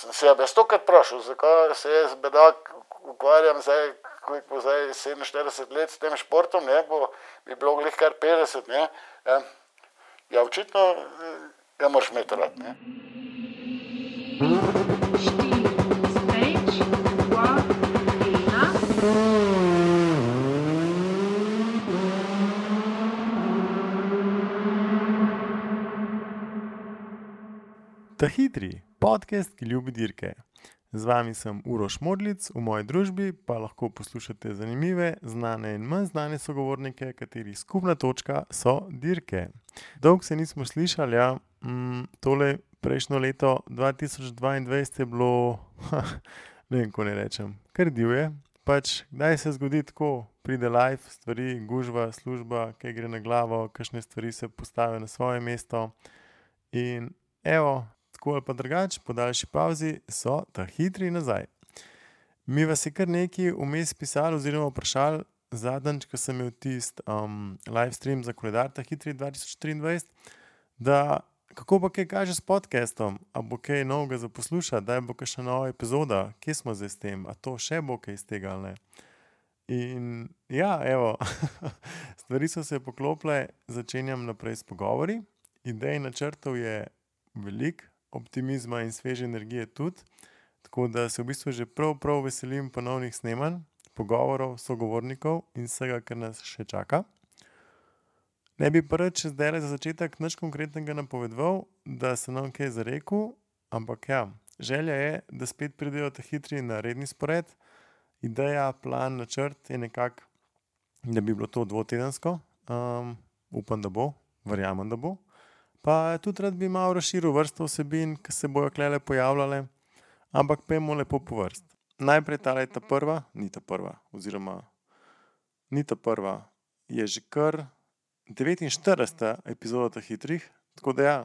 sem se jaz stokrat vprašal, zakaj se jaz bedak ukvarjam zdaj, ko bo zdaj 47 let s tem športom, ne, bi bilo glih kar 50, ne. Ja, očitno ga moraš imeti rad, ne. Ta hitri podcast, ki ljubi dirke. Z vami sem Uroš Modlic, v moji družbi pa lahko poslušate zanimive, znane in manj znane sogovornike, katerih skupna točka so dirke. Dolgo se nismo slišali, ja. Tole prejšnjo leto 2022 je bilo, ne vem, ko ne rečem, kar divje. Pač, kdaj se zgodi tako, pride live, stvari, gužva, služba, kaj gre na glavo, kakšne stvari se postavijo na svoje mesto. In evo, tako ali pa drugače, po daljši pavzi so ta hitri nazaj. Mi vas je kar nekaj vmes pisali oziroma vprašali, zadnjič, ko sem imel tisti live stream za koledar ta hitri 2023, da kako pa kaj kaže s podcastom, a bo kaj novega za poslušati, daj bo kakšna nova epizoda, kje smo zdaj s tem, a to še bo kaj iz tega ali ne. In ja, evo, stvari so se poklopile, začenjam naprej s pogovori, idej načrtov je veliko, optimizma in sveže energije tudi, tako da se v bistvu že prav veselim ponovnih snemanj, pogovorov, sogovornikov in vsega, kar nas še čaka. Ne bi pa rad zdajle za začetek nič konkretnega napovedoval, da se nam kaj zarekel, ampak ja, želja je, da spet pridejo ta hitri na redni spored. Ideja, plan, načrt je nekako, da bi bilo to dvotedensko, upam, da bo, verjamem, da bo. Pa tudi rad bi malo razširil vrsto vsebin, ki se bojo klele pojavljale, ampak pojmo lepo po vrst. Najprej tale je ta prva, je že kar 49. epizoda ta hitrih, tako da ja,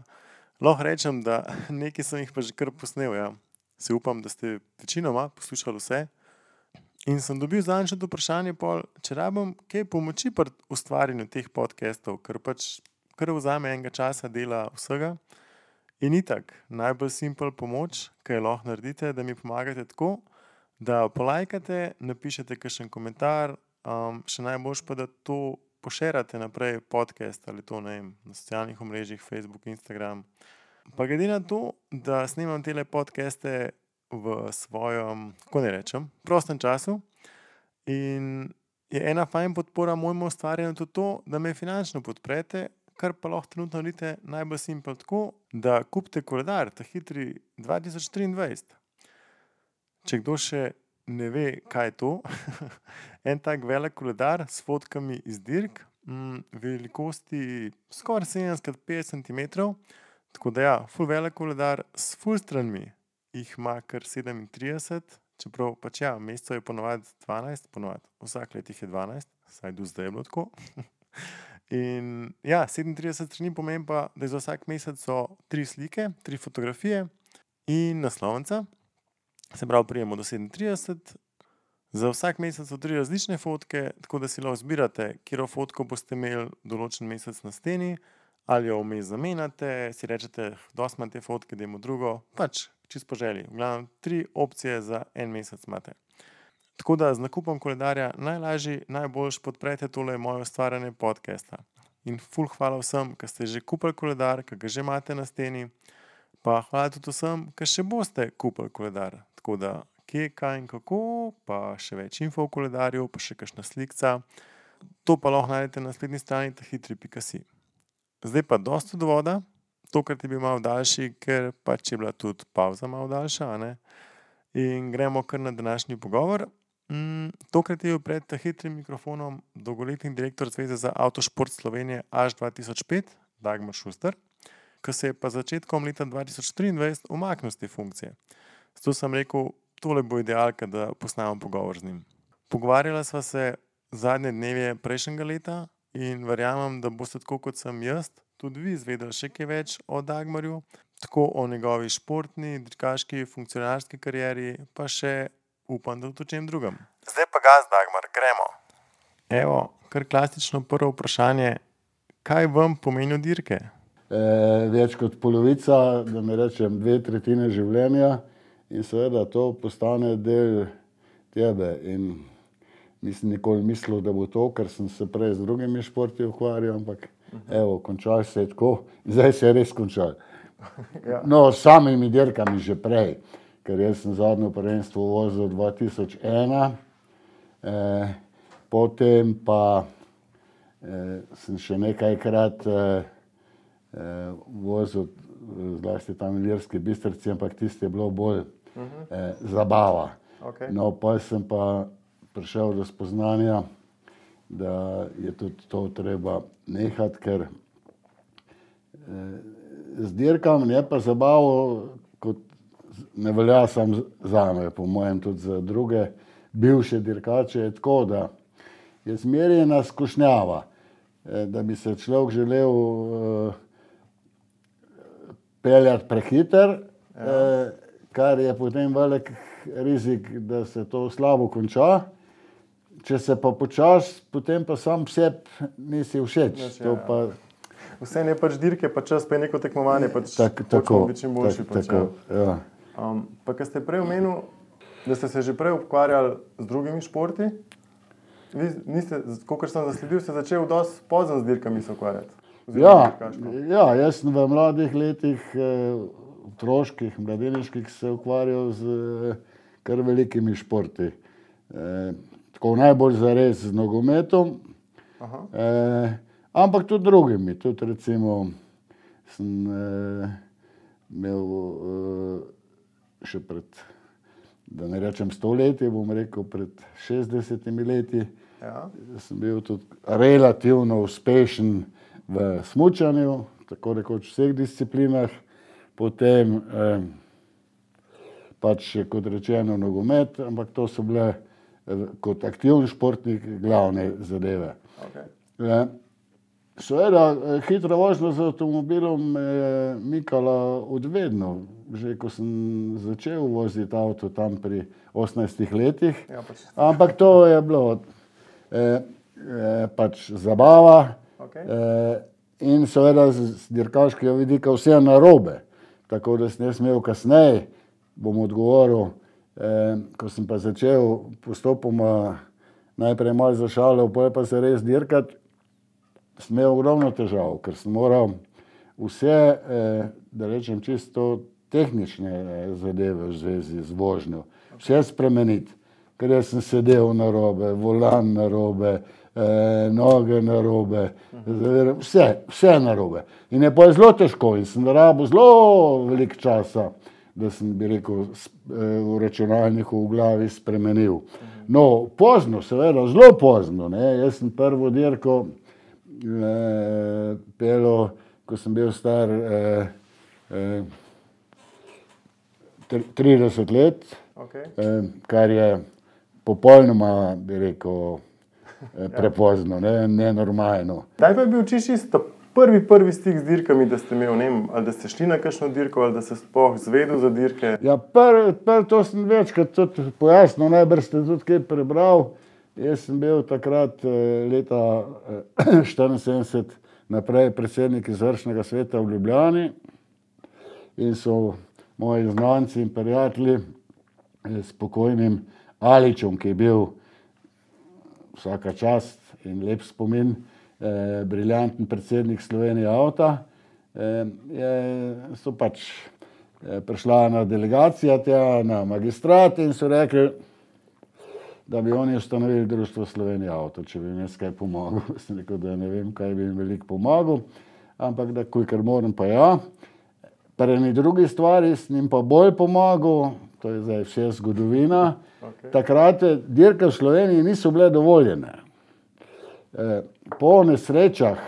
lahko rečem, da nekaj sem jih pa že kar posnel, ja. Se upam, da ste večinoma poslušali vse. In sem dobil zadnjič vprašanje pol, če rabim kaj pomoči pri ustvarjanju teh podcastov, ker pač kar vzame enega časa dela vsega. In itak, najbolj simpel pomoč, kaj lahko naredite, da mi pomagate tako, da polajkate, napišete kakšen komentar, še najboljše pa, da to pošerate naprej podcast ali to, ne vem, na socialnih omrežjih, Facebook, Instagram. Pa glede na to, da snemam tele podcaste v svojem, kako ne rečem, prostem času in je ena fajn podpora mojemu ustvarjanju tudi to, da me finančno podprete, kar pa lahko trenutno naredite najbolj simpel tako, da kupite koledar, ta hitri 2023. Če kdo še ne ve, kaj je to, en tak velik koledar s fotkami iz dirk, velikosti skoraj 70x50 centimetrov, tako da ja, ful velik koledar s ful stranmi, jih ima kar 37, čeprav pač ja, mesecev je ponovadi 12, vsak let jih je 12, saj do zdaj je bilo tako. In ja, 37 strani pomeni pa, da za vsak mesec so 3 slike, 3 fotografije in naslovnica. Se pravi, prijemo do 37. Za vsak mesec so 3 različne fotke, tako da si lahko zbirate, katero fotko boste imeli določen mesec na steni, ali jo vmes zamenjate, si rečete, dosti imam te fotke, dajmo drugo, pač čisto po želji. V glavnem 3 opcije za en mesec imate. Tako da z nakupom koledarja najlažje, najboljš podprete tole moje ustvarjanje podcasta. In ful hvala vsem, ki ste že kupili koledar, ki ga že imate na steni, pa hvala tudi vsem, ki še boste kupili koledar. Tako da kje, kaj in kako, pa še več info o koledarju, pa še kakšna slikca. To pa lahko najdete na spletni strani tahitri.si. Zdaj pa dosti od voda, tokrat je bil malo daljši, ker pač je bila tudi pavza malo daljša, a ne? In gremo kar na današnji pogovor. Tokrat je bil pred hitrim mikrofonom dolgoletni direktor Zveze za avtošport Slovenije Aš 2005, Dagmar Šuster, ki se je pa začetkom leta 2023 umaknil z te funkcije. Zato sem rekel, tole bo idealka, da posnamem pogovor z njim. Pogovarjala sva se zadnje dneve prejšnjega leta in verjamem, da boste tako kot sem jaz, tudi vi izvedeli še kaj več o Dagmarju, tako o njegovi športni, dirkaški, funkcionarski karieri, pa še upam, da tudi o čem drugem. Zdaj pa gas, Dagmar, gremo. Evo, kar klasično prvo vprašanje, kaj vam pomenijo dirke? Več kot polovica, da ne rečem 2/3 življenja in seveda to postane del tebe in nisem nikoli mislil, da bo to, ker sem se prej z drugimi športi ukvarjal, ampak evo, končal se je tako, zdaj se je res končal. Ja. No, s samimi dirkami že prej, ker jaz sem zadnjo prvenstvo vozil 2001, potem pa sem še nekajkrat vozil, zlasti tam v Ilirski Bistrici, ampak tisto je bilo bolj zabava. Okay. No, pa sem pa prišel do spoznanja, da je tudi to treba nehati, ker z dirkami je pa zabavo, kot ne velja samo zame, po mojem tudi za druge bivše dirkače, je tako, da je zmerjena skušnjava, da bi se človek želel peljati prehiter, kar je potem velik rizik, da se to slabo konča. Če se pa počasi, potem pa sam sebi nisi všeč. To pa vse je pač dirke, pa čas, pa je neko tekmovanje, pač tako, biti čim boljši. tako, ja. Pa kad ste prej omenil, da ste se že prej ukvarjali z drugimi športi, vi niste, kakor sem zasledil, ste začeli dosti pozno z dirkami se ukvarjati. Ja, jaz sem v mladih letih, otroških, mladeniških se ukvarjal z kar velikimi športi. Tako najbolj zares z nogometom, ampak tudi drugimi. Tudi recimo sem imel še pred, da ne rečem 100 leti, bom rekel pred 60 leti, sem bil tudi relativno uspešen v smučanju, tako rekoč v vseh disciplinah, potem pač kot rečeno nogomet, ampak to so bile kot aktivni športnik glavne zadeve. Okay. Seveda, hitra vožnja z avtomobilom me je mikala odvedno. Že ko sem začel voziti avto tam pri 18 letih, ampak to je bilo pač zabava. Okay. In seveda z dirkaškega vidika vse narobe. Tako da sem jaz imel kasneje, bom odgovoril, ko sem pa začel postopoma najprej malo zašalil, potem pa se res dirkati, sem imel ogromno težav, ker sem moral vse, da rečem čisto tehnične zadeve v zvezi z vožnjo, vse spremeniti, ker jaz sem sedel narobe, volan narobe, noge narobe, vse narobe. In je pa zelo težko in sem rabil zelo veliko časa, da sem, bi rekel, v računalniku v glavi spremenil. No, pozno, seveda, zelo pozno, ne. Jaz sem prvo dirko peljal, ko sem bil star 30 let, kar je popolnoma, bi rekel, prepozno, nenormalno. Kdaj pa je bil čisto prvi stik z dirkami, da ste imeli, ne vem, ali da ste šli na kakšno dirko, ali da ste sploh zvedel za dirke? Ja, to sem večkrat tudi pojasnil, najbrž ste tudi kaj prebral. Jaz sem bil takrat leta 1974 naprej predsednik izvršnega sveta v Ljubljani in so moji znanci in prijatelji s pokojnim Aličem, ki je bil vsaka čast in lep spomin, briljanten predsednik Slovenije avta, so pač prišla ena delegacija tja na magistrat in so rekli, da bi oni ustanovili društvo Slovenije avto, če bi jim jaz kaj pomagal. Sem rekel, da ne vem, kaj bi jim veliko pomagal, ampak da kolikor moram pa ja. Pri eni drugi stvari sem jim pa bolj pomagal, to je zdaj vse zgodovina. Takrat dirke v Sloveniji niso bile dovoljene. Po nesrečah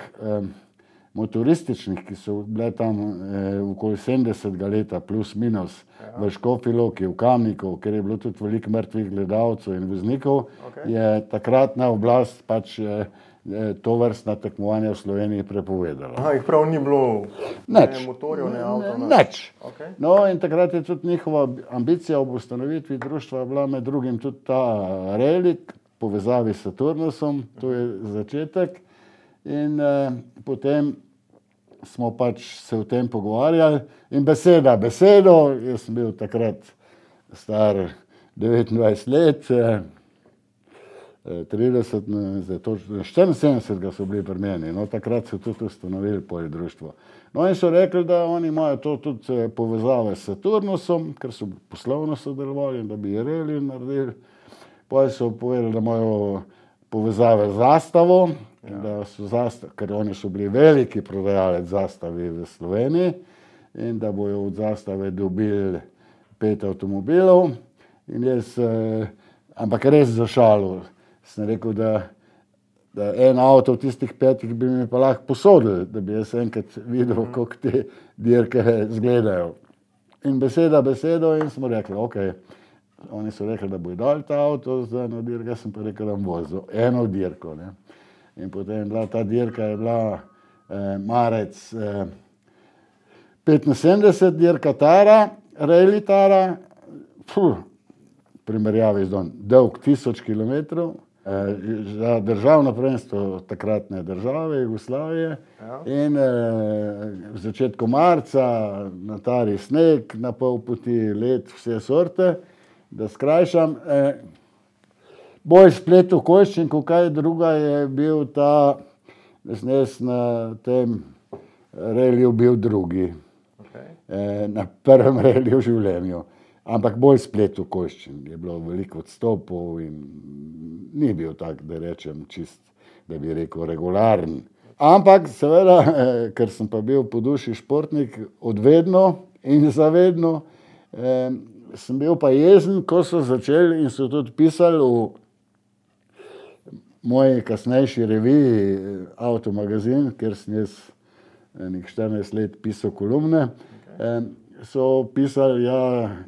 motorističnih, ki so bile tam okoli 70 leta plus minus v Škofji Loki, v Kamniku, ker je bilo tudi veliko mrtvih gledalcev in voznikov, je takratna oblast pač to vrstna tekmovanja v Sloveniji prepovedala. Aha, jih prav ni bilo ne motorjev, ne avto? Nič. No in takrat je tudi njihova ambicija ob ustanovitvi društva bila med drugim tudi ta relik, povezavi s Saturnusom, to je začetek. In potem smo pač se o tem pogovarjali in besedo, jaz sem bil takrat star 29 let, 30, zdaj točno 74 so bili pri meni, no takrat so tudi ustanovili poje društvo. No in so rekli, da oni imajo to tudi povezave s Saturnusom, ker so poslovno sodelovali, da bi reli naredili. Poje so povedali, da imajo povezave z Zastavo, da so ker oni so bili veliki prodajalec Zastavi v Sloveniji in da bojo od Zastave dobili 5 avtomobilov. In jaz, ampak res za šalo, sem rekel, da en avto v tistih 5 bi mi pa lahko posodili, da bi jaz enkrat videl, kako te dirke izgledajo. In besedo in smo rekli, ok, oni so rekli, da bojo dali ta avto za eno dirko, jaz sem pa rekel, da bom vozil eno dirko. Ne. In potem ta dirka je bila marec 75, dirka Tara, Rally Tara, primerjavi z dolg 1000 kilometrov, za državno prvenstvo takratne države, Jugoslavije. In v začetku marca na Tari sneg, na pol poti led, vse sorte, da skrajšam. Bolj splet okoliščin, kaj druga je bil ta, da sem jaz na tem reliju bil drugi. Na prvem reliju v življenju. Ampak bolj splet okoliščin, je bilo veliko odstopov in ni bil tak, da rečem čist, da bi rekel regularen. Ampak seveda, ker sem pa bil po duši športnik odvedno in zavedno, sem bil pa jezen, ko so začeli in so tudi pisali v moji kasnejši reviji Avtomagazin, ker sem jaz nekaj 14 let pisal kolumne, so pisali,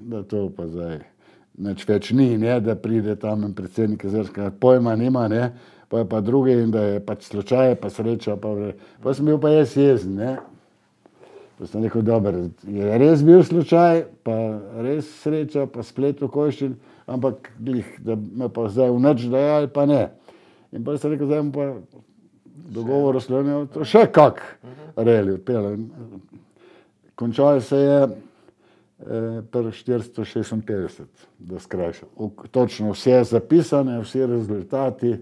da to pa zdaj nič več ni, ne, da pride tam predsednik Jezerskega, pojma nima, ne, pa je pa drugi in da je pač slučaj, pa sreča, pa sem bil pa jaz jezen, ne. Pa sem rekel, dobro, je res bil slučaj, pa res sreča, pa splet okoliščin, ampak da me pa zdaj v nič dajali, pa ne. In pa sem rekel, zdaj pa dogovor oslonil, to še kak reli odpeljal. Končal se je pri 456, da skrajšam. Točno vse zapisane, vsi rezultati,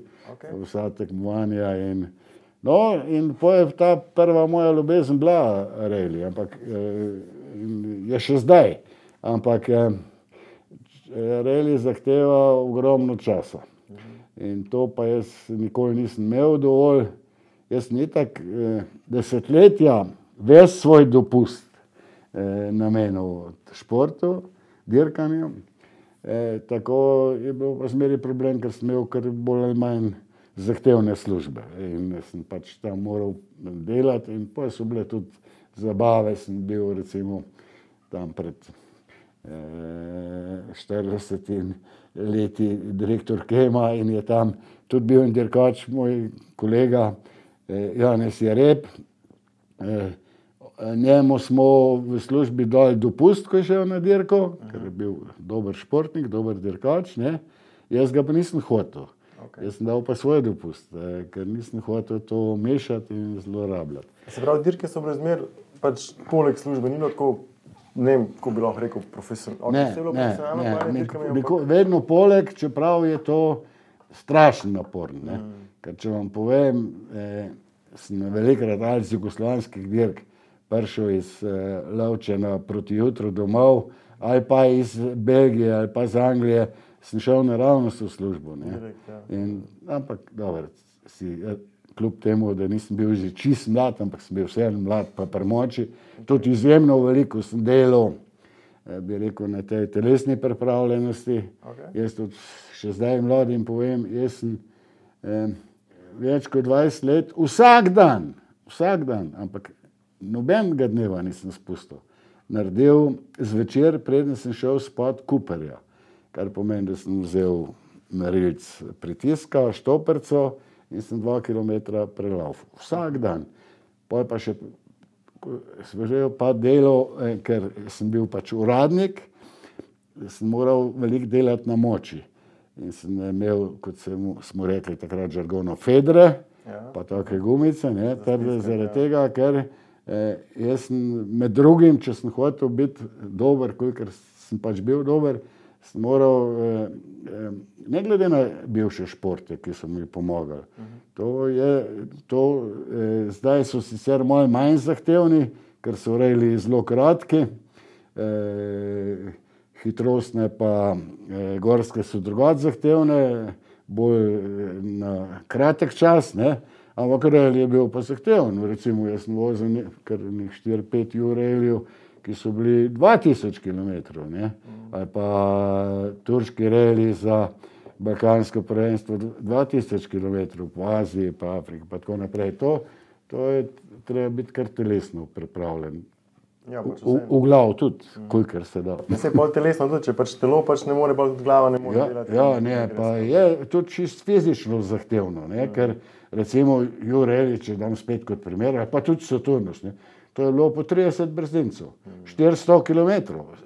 vsa tekmovanja in potem je ta prva moja ljubezen bila reli, ampak je še zdaj. Ampak reli zahteva ogromno časa. In to pa jaz nikoli nisem imel dovolj. Jaz sem itak desetletja ves svoj dopust namenil športu, dirkanju. Tako je bil pa zmeri problem, ker sem imel kar bolj ali manj zahtevne službe. In sem pač tam moral delati in pa so bile tudi zabave. Sem bil recimo tam pred 40 leti direktor Kema in je tam tudi bil en dirkač, moj kolega Janez Jereb. Njemu smo v službi dali dopust, ko je šel na dirko, ker je bil dober športnik, dober dirkač, ne. Jaz ga pa nisem hotel. Jaz sem dal pa svoj dopust, ker nisem hotel to mešati in zlorabljati. Se pravi, dirke so bile zmer, pač poleg službe, ni bilo tako, ne vem, kako bi lahko rekel, profesionalno. Ne, vedno poleg, čeprav je to strašen napor, ne. Ker če vam povem, sem velikokrat ali z jugoslovanskih dirk prišel iz Lovčena proti jutru domov, ali pa iz Belgije, ali pa iz Anglije, sem šel naravnost v službo, ne. Ampak, dobro, kljub temu, da nisem bil že čist mlad, ampak sem bil vseeno mlad pa pri moči, tudi izjemno veliko sem delal, bi rekel, na tej telesni pripravljenosti. Jaz tudi še zdaj mladim povem, jaz sem več kot 20 let, vsak dan, ampak nobenega dneva nisem spustil, naredil zvečer, preden sem šel spat kuperja, kar pomeni, da sem vzel merilc pritiska, štoperco in sem 2 kilometra prelaufal. Vsak dan. Potem pa še svežel pa delo, ker sem bil pač uradnik, sem moral veliko delati na moči. In sem imel, kot smo rekli takrat žargono, fedre, pa take gumice, ne, zaradi tega, ker jaz sem med drugim, če sem hotel biti dober, kolikor sem pač bil dober, sem moral, ne glede na bivše športe, ki so mi pomagali, zdaj so sicer malo manj zahtevni, ker so rejli zelo kratki, hitrostne pa gorske so drugače zahtevne, bolj na kratek čas, ne? Ampak rejl je bil pa zahteven. Recimo jaz sem vozil kar 4-5 ur rejljev, ki so bili 2000 km, ne? Ali pa turški rejli za balkansko prvenstvo 2000 km po Aziji, pa Afriki, pa tako naprej. To je treba biti kar telesno pripravljen. Ja, v glavu tudi, kolikor se da. Ja, se je pol telesno tudi, če pač telo pač ne more, pa tudi glava ne more delati. Ja, ne, pa je tudi čist fizično zahtevno, ne, ker recimo Jure Elič, če dam spet kot primer, pa tudi Saturnus, ne, to je bilo po 30 brzincev, 400 km,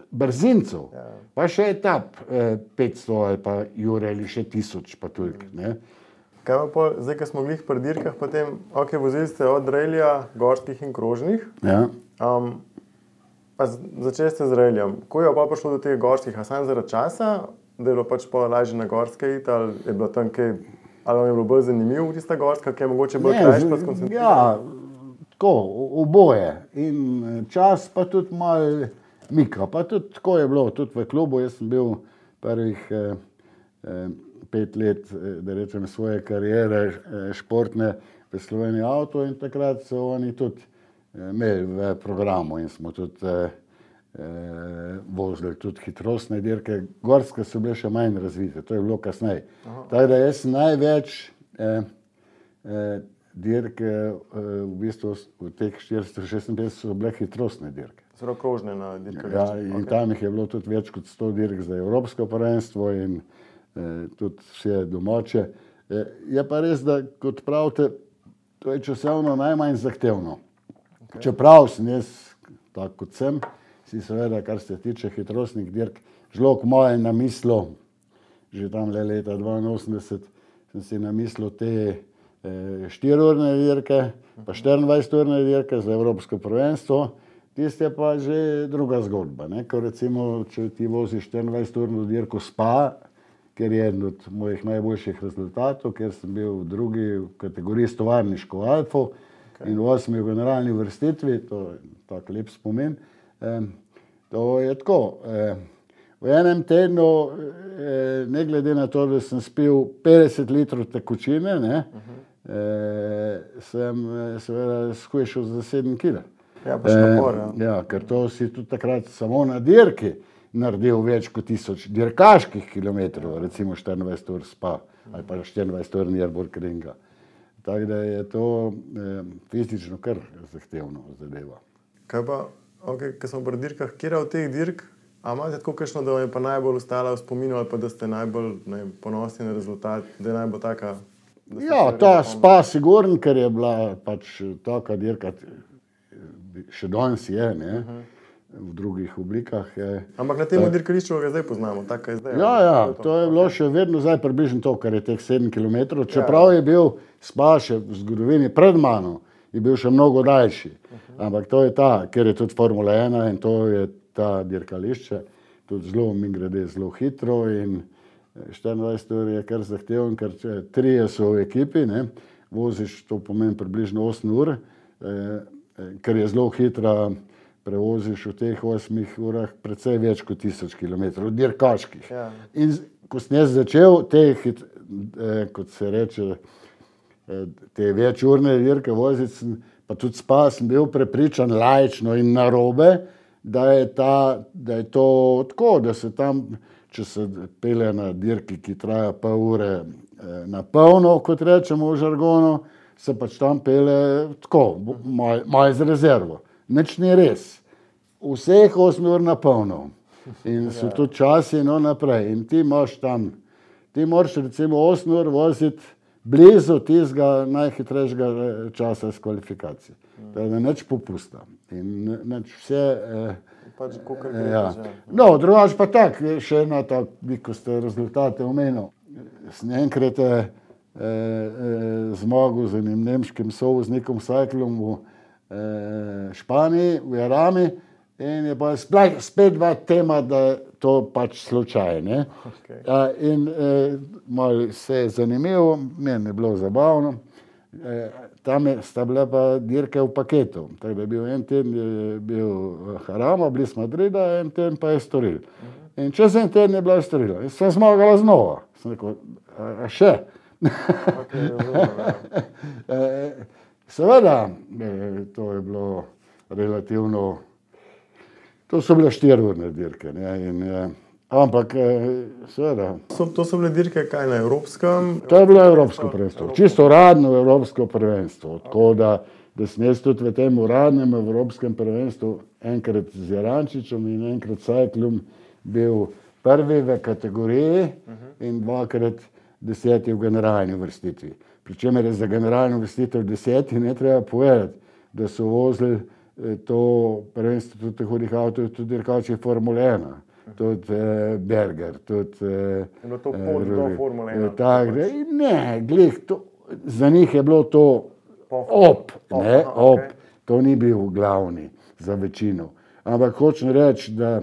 brzincev, pa še etap 500 ali pa Jure Elič še 1000, pa toliko, ne. Kaj pa pol, zdaj, ko smo glih pri dirkah, potem, vozili ste od rejlja, gorskih in krožnih. Ja. Pa začeli ste z rejljem. Ko je pa prišlo do teh gorskih, a samo zaradi časa, da je bilo pač pol lažje na gorske iti, ali je bilo tam kaj, ali vam je bilo bolj zanimivo tista gorska, ki je mogoče bolj krajša pa skoncentrirana? Ja, tako, oboje. In čas pa tudi malo mika. Pa tudi tako je bilo, tudi v klubu. Jaz sem bil prvih 5 let, da rečem, svoje kariere športne v Sloveniji Avto in takrat so oni tudi imeli v programu in smo tudi vozili tudi hitrostne dirke. Gorske so bile še manj razvite, to je bilo kasneje. Tako da jaz največ dirke v bistvu v teh 456 so bile hitrostne dirke. Zelo krožne na dirkališču. Ja, in tam jih je bilo tudi več kot 100 dirk za evropsko prvenstvo in tudi vse domače. Je pa res, da kot pravite, to je časovno najmanj zahtevno. Čeprav sem jaz, tako kot sem, si seveda, kar se tiče hitrostnih dirk, žlog moje namislil, že tam leta 82, sem si namislil te 4-urne dirke, pa 24-urne dirke za evropsko prvenstvo. Tiste je pa že druga zgodba, ne? Ko recimo, če ti voziš 24-urno dirko Spa, ker je eden od mojih najboljših rezultatov, ker sem bil v drugi kategoriji s tovarniško Alfo, in v 8. generalni vrstitvi, to je tak lep spomin, to je tako. V enem tednu, ne glede na to, da sem spil 50 litrov tekočine, ne, sem seveda shujšal za 7 kg. Ja, pa še napor, ja. Ja, ker to si tudi takrat samo na dirki naredil več kot 1000 dirkaških kilometrov, recimo 24 ur Spa ali pa 24 ur Nürburgringa. Tako da je to fizično kar zahtevno zadeva. Kaj pa, ko smo pri dirkah, kjera od teh dirk, a imate tako kakšno, da vam je pa najbolj ostala v spominu ali pa da ste najbolj ponosni na rezultat, da je najbolj taka? Ja, ta Spa sigurno, ker je bila pač taka dirka, še danes je, ne, v drugih oblikah. Ampak na tem dirkališču ga zdaj poznamo, tako je zdaj. Ja, to je bilo še vedno zdaj približno to, kar je teh 7 km, čeprav je bil Spa še v zgodovini pred mano, je bil še mnogo daljši. Ampak to je ker je tudi Formula 1 in to je ta dirkališče, tudi zelo, mimogrede, zelo hitro in 24 ur je kar zahteven, ker 3 so v ekipi, ne, voziš, to pomeni približno 8 ur, ker je zelo hitra, prevoziš v teh 8 urah precej več kot 1000 km dirkaških. Ja. In ko sem jaz začel kot se reče, te večurne dirke voziti, pa tudi Spa, sem bil prepričan laično in narobe, da je to tako, da se tam, če se pelje na dirki, ki traja pol ure na polno, kot rečemo v žargonu, se pač tam pelje tako, malo z rezervo. Nič ni res. Vseh 8 ur na polno. In so tudi časi naprej. In ti imaš tam, ti moraš recimo 8 ur voziti blizu tistega najhitrejšega časa s kvalifikacije. Da nič popusta. In nič vse... Pač kukor gre. No, drugače pa tak, še ena tak, ko ste rezultate omenil. Sem enkrat zmagal z enim nemškim sovoznikom Cyclom v Španiji, v Jarami, in je pa spet bila tema, da to pač slučaj, ne. Okay. In malo se je zanimivo, meni je bilo zabavno. Tam sta bila pa dirke v paketu. Tako da je bil en teden je bil Jarama, bliz Madrida, en teden pa Estoril. In čez en teden je bila Estorila. In sem zmagala znova. Sem rekel, a še? Okay, Seveda, to je bilo relativno, to so bile 4-urne dirke, ne, in ampak seveda. To so bile dirke kaj na evropskem? To je bilo evropsko prvenstvo, čisto uradno evropsko prvenstvo, tako da sem jaz tudi v tem uradnem evropskem prvenstvu enkrat z Jarančičem in enkrat Sajklom bil prvi v kategoriji in 2-krat 10. v generalni vrstitvi. Pričemer je za generalno vrstitev 10. ne treba povedati, da so vozili to prvenstvo tudi hudih avtov, tudi dirkači Formule 1, tudi Berger, tudi to pot do Formule 1. Tak, ne, glih, za njih je bilo to op, to ni bil glavni za večino. Ampak hočem reči, da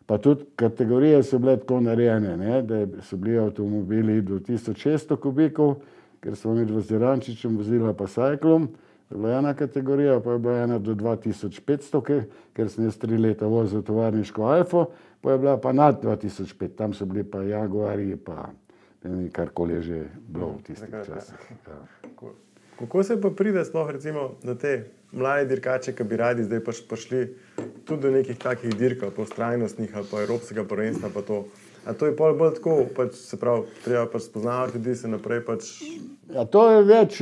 pa tudi kategorije so bile tako narejene, ne, da so bili avtomobili do 1600 kubikov, ker smo med Jarančičem vozila pa Sajklom, je bila ena kategorija, pa je bila ena do 2500, ker sem jaz 3 leta vozil tovarniško Alfo, pa je bila pa nad 2005, tam so bili pa Jaguari, pa karkoli je že bilo v tistih časih. Ja. Kako se pa pride sploh recimo na te mlade dirkače, ki bi radi zdaj pač prišli tudi do nekih takih dirk, po strajnostnih ali pa evropskega prvenstva pa to? A to je bolj tako, pač se pravi, treba pač spoznavati ljudi, se naprej pač... Ja, to je več,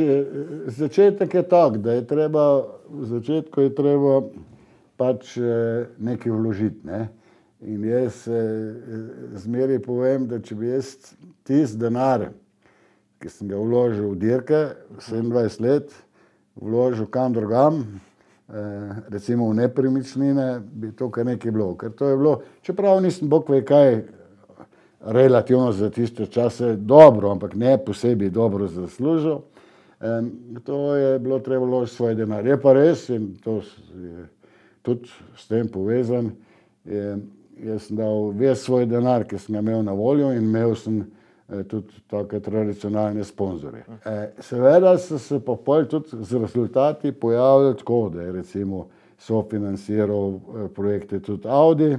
začetek je tak, da je treba, v začetku je treba pač nekaj vložiti, ne. In jaz zmeraj povem, da če bi jaz tisti denar, ki sem ga vložil v dirke, 27 let, vložil kam drugam, recimo v nepremičnine, bi to kar nekaj bilo. Ker to je bilo, čeprav nisem bog ve kaj, relativno za tiste čase dobro, ampak ne posebej dobro zaslužil. To je bilo treba vložiti svoj denar. Je pa res, in to je tudi s tem povezan, jaz sem dal ves svoj denar, ki sem ga imel na voljo in imel sem tudi take tradicionalne sponzorje. Seveda so se pa pol tudi z rezultati pojavili tako, da je recimo sofinanciral projekte tudi Audi,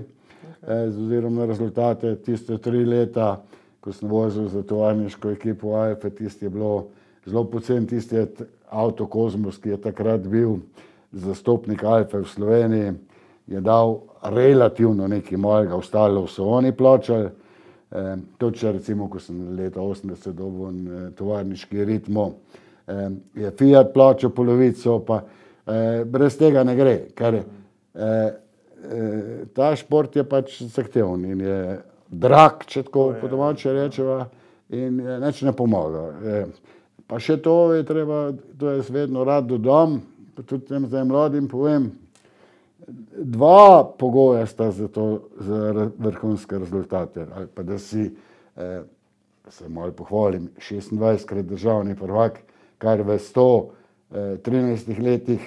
z ozirom na rezultate tiste 3 leta, ko sem vozil za tovarniško ekipo Alfe, tisti je bilo zelo pocen, tisti je avto Kozmos, ki je takrat bil zastopnik Alfe v Sloveniji, je dal relativno nekaj mojega, ostalo so oni plačali. Tudi če recimo, ko sem leta 80 dobil tovarniški Ritmo, je Fiat plačal polovico, pa brez tega ne gre, ker ta šport je pač zahteven in je drag, če tako po domače rečeva, in nič ne pomaga. Pa še to je treba, to jaz vedno rad dodam, pa tudi tem zdaj mladim povem, 2 pogoja sta za to, za vrhunske rezultate, ali pa da si, se malo pohvalim, 26-krat državni prvak, kar v 113 letih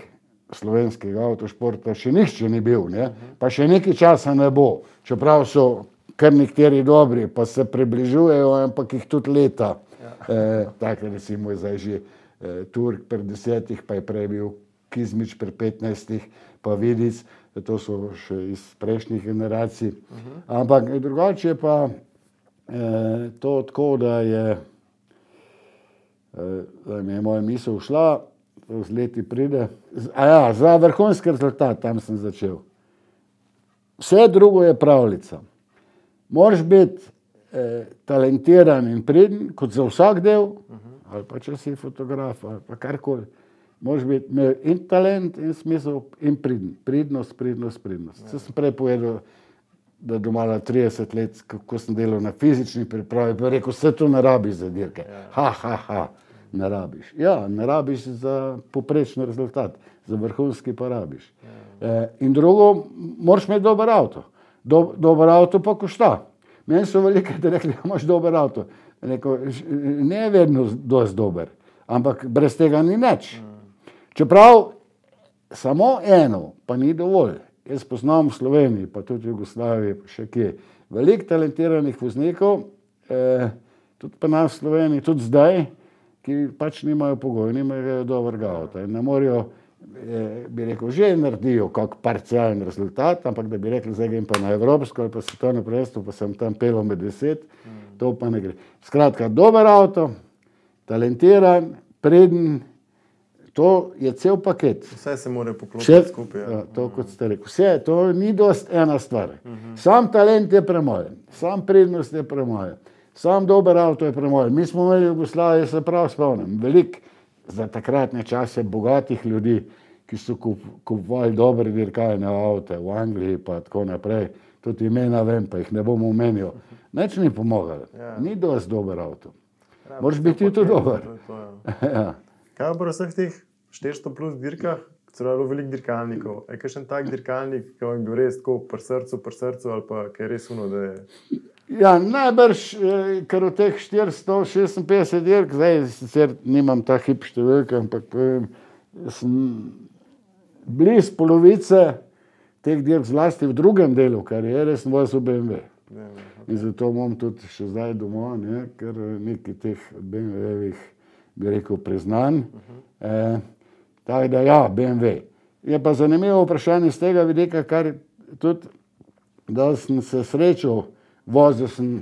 slovenskega avtošporta še nihče ni bil, ne? Pa še nekaj časa ne bo, čeprav so kar nekateri dobri, pa se približujejo, ampak jih tudi leta. Tako recimo je zdaj že Turk pri 10, pa je prej bil Kizmič pri 15, pa Vidic, to so še iz prejšnjih generacij. Ampak drugače je pa to tako, da je, da mi je moja misel šla, z leti pride. Za vrhunski rezultat, tam sem začel. Vse drugo je pravljica. Moraš biti talentiran in priden, kot za vsak del, ali pa če si fotograf, ali pa karkoli. Moraš biti in talent, in smisel, in priden. Pridnost. Se sem prej povedal, da domala 30 let, ko sem delal na fizični pripravi, pa rekel, vse to ne rabiš za dirke. Ne rabiš. Ja, ne rabiš za poprečni rezultat, za vrhunski pa rabiš. In drugo, moraš imeti dober avto. Dober avto pa košta. Meni so veliko rekli, da imaš dober avto. Rekel, ne vedno dosti dober, ampak brez tega ni nič. Čeprav samo eno pa ni dovolj. jaz poznam v Sloveniji, pa tudi v Jugoslaviji, pa še kje, veliko talentiranih voznikov, tudi pa nas v Sloveniji, tudi zdaj, ki pač nimajo pogoja, nimajo dobrega avta in ne morajo, bi rekel, že naredijo kak parcialen rezultat, ampak da bi rekli, zdaj grem pa na evropsko ali pa svetovno prvenstvo, pa sem tam pelil med 10, to pa ne gre. Skratka, dober avto, talentiran, preden, to je cel paket. Vse se mora poklopiti skupaj. Ja, to, kot ste rekli. Vse, to ni dost ena stvar. Sam talent je premoj, sam prednost je premoj, sam dober avto je premoj. Mi smo imeli v Jugoslaviji, se prav spomnim, veliko za takratne čase bogatih ljudi, ki so kupovali dobre dirkalne avte v Angliji pa tako naprej. Tudi imena vem, pa jih ne bom omenil. Nič ni pomagalo. Ni dost dober avto. Moraš biti tudi dober. Ja. Kaj pa vseh teh 400 plus dirkah, celo veliko dirkalnikov? Je kakšen tak dirkalnik, ki bi bil res tako pri srcu, ali pa ki je res uno, da je... Ja, najbrž, ker v teh 456 dirk, zdaj sicer nimam ta hip številka, ampak sem bliz polovice teh dirk, zlasti v drugem delu kariere, sem vozil BMW. In zato imam tudi še zdaj doma, ne, ker nekaj teh BMW-evih, bi rekel, priznanj. Tako da ja, BMW. Je pa zanimivo vprašanje z tega vidika, kar tudi, da sem se srečal, vozil sem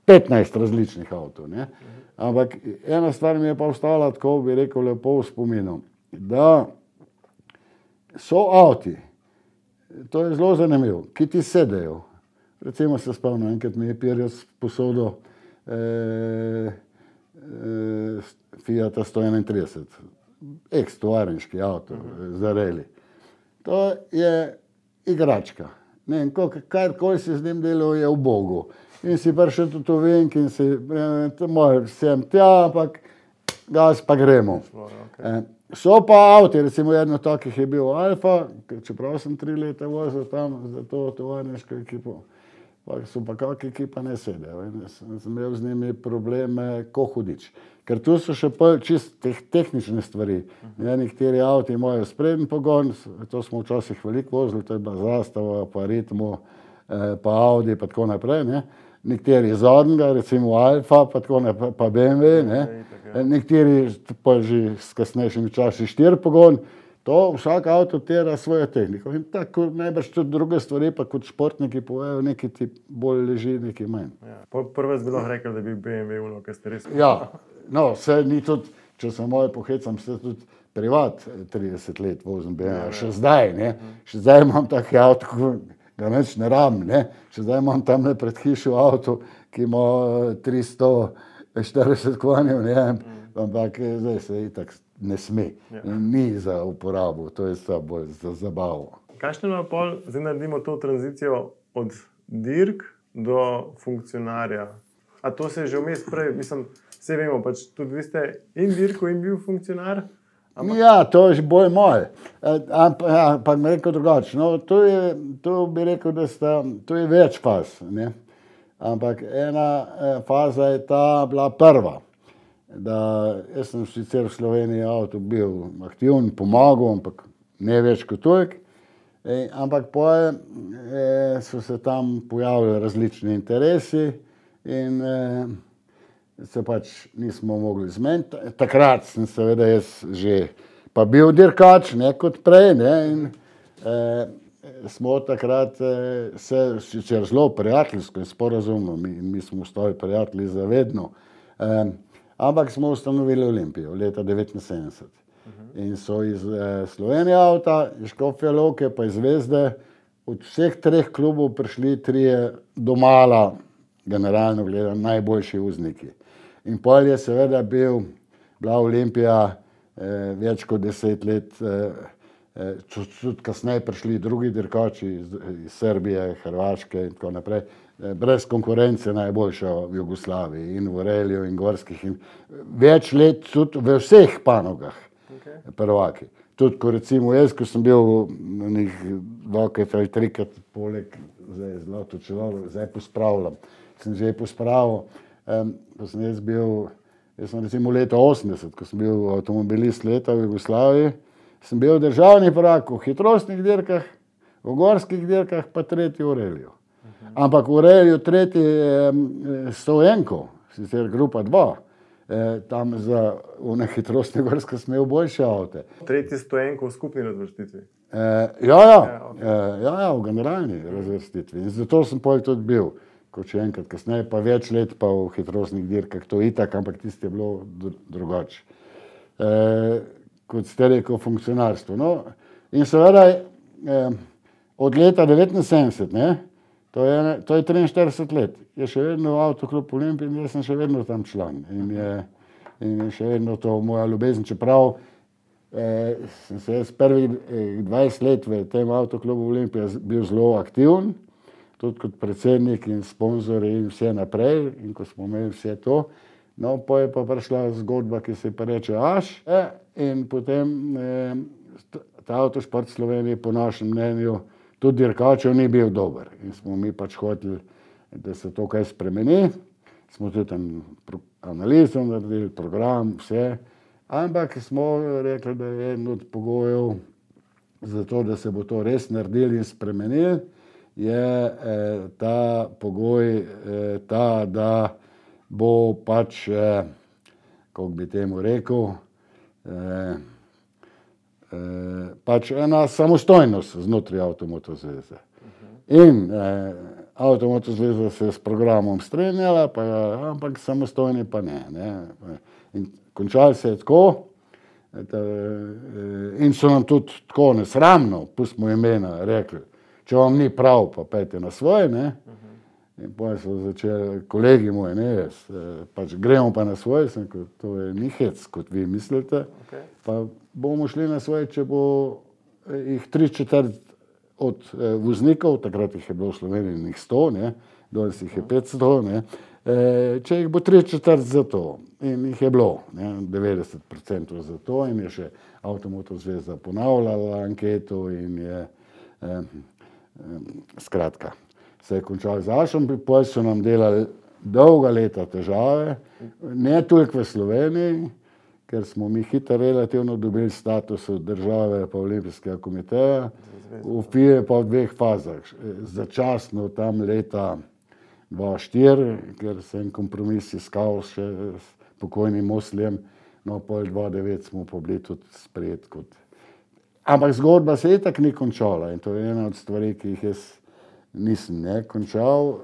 15 različnih avtov, ne. Ampak ena stvar mi je pa ostala tako, bi rekel, lepo v spominu, da so avti, to je zelo zanimivo, ki ti sedejo. Recimo se spomnim, enkrat mi je Pirjus posodil Fiata 131, ex-tovarniški avto za rally. To je igračka. Ne vem, karkoli si z njim delal, je v Bogu. In si prišel tudi v Venk in si, sem tja, ampak gas pa gremo. So pa avti, recimo jedno takih je bil Alfa, čeprav sem 3 leta vozil tam za to tovarniško ekipo. Pa so pa kakšne ekipa ne sedejo. Sem imel z njimi probleme, ko hudič. Ker tu so še čisto tehnične stvari. Nekateri avti imajo spreden pogon, to smo včasih veliko vozili, to je bila Zastava, pa Ritmo, pa Audi, pa tako naprej. Ne. Nekateri zadnjega, recimo Alfa, pa tako naprej, pa BMW. Ne. Nekateri pa že s kasnejšimi časi 4 pogon. To vsak avto tera svojo tehniko. In tako najbrž tudi druge stvari, pa kot športniki povejo, nekaj ti bolj leži, nekaj manj. Ja. Prvo bi lahko rekel, da bi BMW uno, kaj ste res... Ja, no, vse ni tudi, če se moje pohecam, se tudi privat 30 let vozim BMW, še zdaj, ne. Še zdaj imam taki avto, ko ga nič ne rabim, ne. Še zdaj imam tamle pred hišo avto, ki ima 340 konjev, ne. Ampak zdaj se itak ne sme. Ni za uporabo, to je samo bolj za zabavo. Kakšno je pol, zdaj naredimo to tranzicijo od dirk do funkcionarja? A to se je že vmes prej, mislim, vse vemo, pač tudi vi ste in dirko in bil funkcionar? Ja, to je bolj moj. Ampak mi rekel drugače. No, to bi rekel, da to je več faz, ne. Ampak ena faza je ta bila prva. Da jaz sem sicer v Sloveniji avto bil aktiven, pomagal, ampak ne več kot toliko. Ampak potem so se tam pojavili različni interesi in se pač nismo mogli zmeniti. Takrat sem seveda jaz že pa bil dirkač, ne kot prej, ne, in smo takrat se sicer zelo prijateljsko in sporazumno, mi smo ostali prijatelji za vedno, ampak smo ustanovili Olimpijo leta 1979. In so iz Slovenije avta, iz Škofje Loke pa iz Zvezde od vseh 3 klubov prišli 3 domala, generalno gledano, najboljši vozniki. In pol je seveda bila Olimpija več kot 10 let, tudi kasneje prišli drugi dirkači iz Srbije, Hrvaške in tako naprej. Brez konkurence najboljša v Jugoslaviji in v reliju in gorskih in več let tudi v vseh panogah prvaki. Tudi ko recimo jaz, ko sem bil na njih 2 ali 3 poleg, zdaj zlato čelo, zdaj pospravljam, sem že pospravil, ko sem jaz sem recimo leta 80, ko sem bil avtomobilist leta v Jugoslaviji, sem bil državni prvak v hitrostnih dirkah, v gorskih dirkah, pa tretji v reliju. Ampak v reliju tretji 101, sicer grupa 2, tam za hitrostne gorske sem imel boljše avte. Tretji 101 v skupni razvrstitvi. V generalni razvrstitvi. In zato sem potem tudi bil, kot še enkrat kasneje, pa več let pa v hitrostnih dirkah, to itak, ampak tisto je bilo drugače. Kot ste rekel, funkcionarstvo. No, in seveda od leta 1979, to je 43 let, je še vedno Avtoklub Olimpija in jaz sem še vedno tam član. In je še vedno to moja ljubezen, čeprav sem se jaz prvih 20 let v tem Avtoklubu Olimpija bil zelo aktiven, tudi kot predsednik in sponzor in vse naprej, in ko smo imeli vse to. No, pa je pa prišla zgodba, ki se pa reče Aš, in potem ta Avtošport Slovenije po našem mnenju tudi dirkačev ni bil dober. In smo mi pač hoteli, da se to kaj spremeni. Smo tudi analizo naredili, program, vse. Ampak smo rekli, da je eden od pogojev za to, da se bo to res naredili in spremenili, je ta pogoj ta, da bo pač, kako bi temu rekel, pač ena samostojnost znotraj Avtomoto zveze. In Avtomoto zveza se je s programom strinjala, ampak samostojni pa ne. In končali se je tako, in so nam tudi tako nesramno, pustimo imena, rekli, če vam ni prav, pa pejte na svoje, In potem so začeli kolegi moji, jaz, pač gremo pa na svoje, sem rekel, to je ni hec, kot vi mislite, pa bomo šli na svoje, če bo jih 3/4 od voznikov, takrat jih je bilo v Sloveniji njih 100, danes jih je 500, če jih bo 3/4 za to. In jih je bilo, 90% za to, in je še Avtomoto zveza ponavljala anketo in je skratka. Se je končal z Ašom, potem so nam delali dolga leta težave, ne toliko v Sloveniji, ker smo mi hitro relativno dobili status od države pa Olimpijskega komiteja, v FIA pa v 2 fazah. Začasno tam leta 2004, ker se en kompromis iskal še s pokojnim Mosljem, no pol 2009 smo pa bili tudi sprejeti kot. Ampak zgodba se itak ni končala in to je ena od stvari, ki jih jaz nisem končal.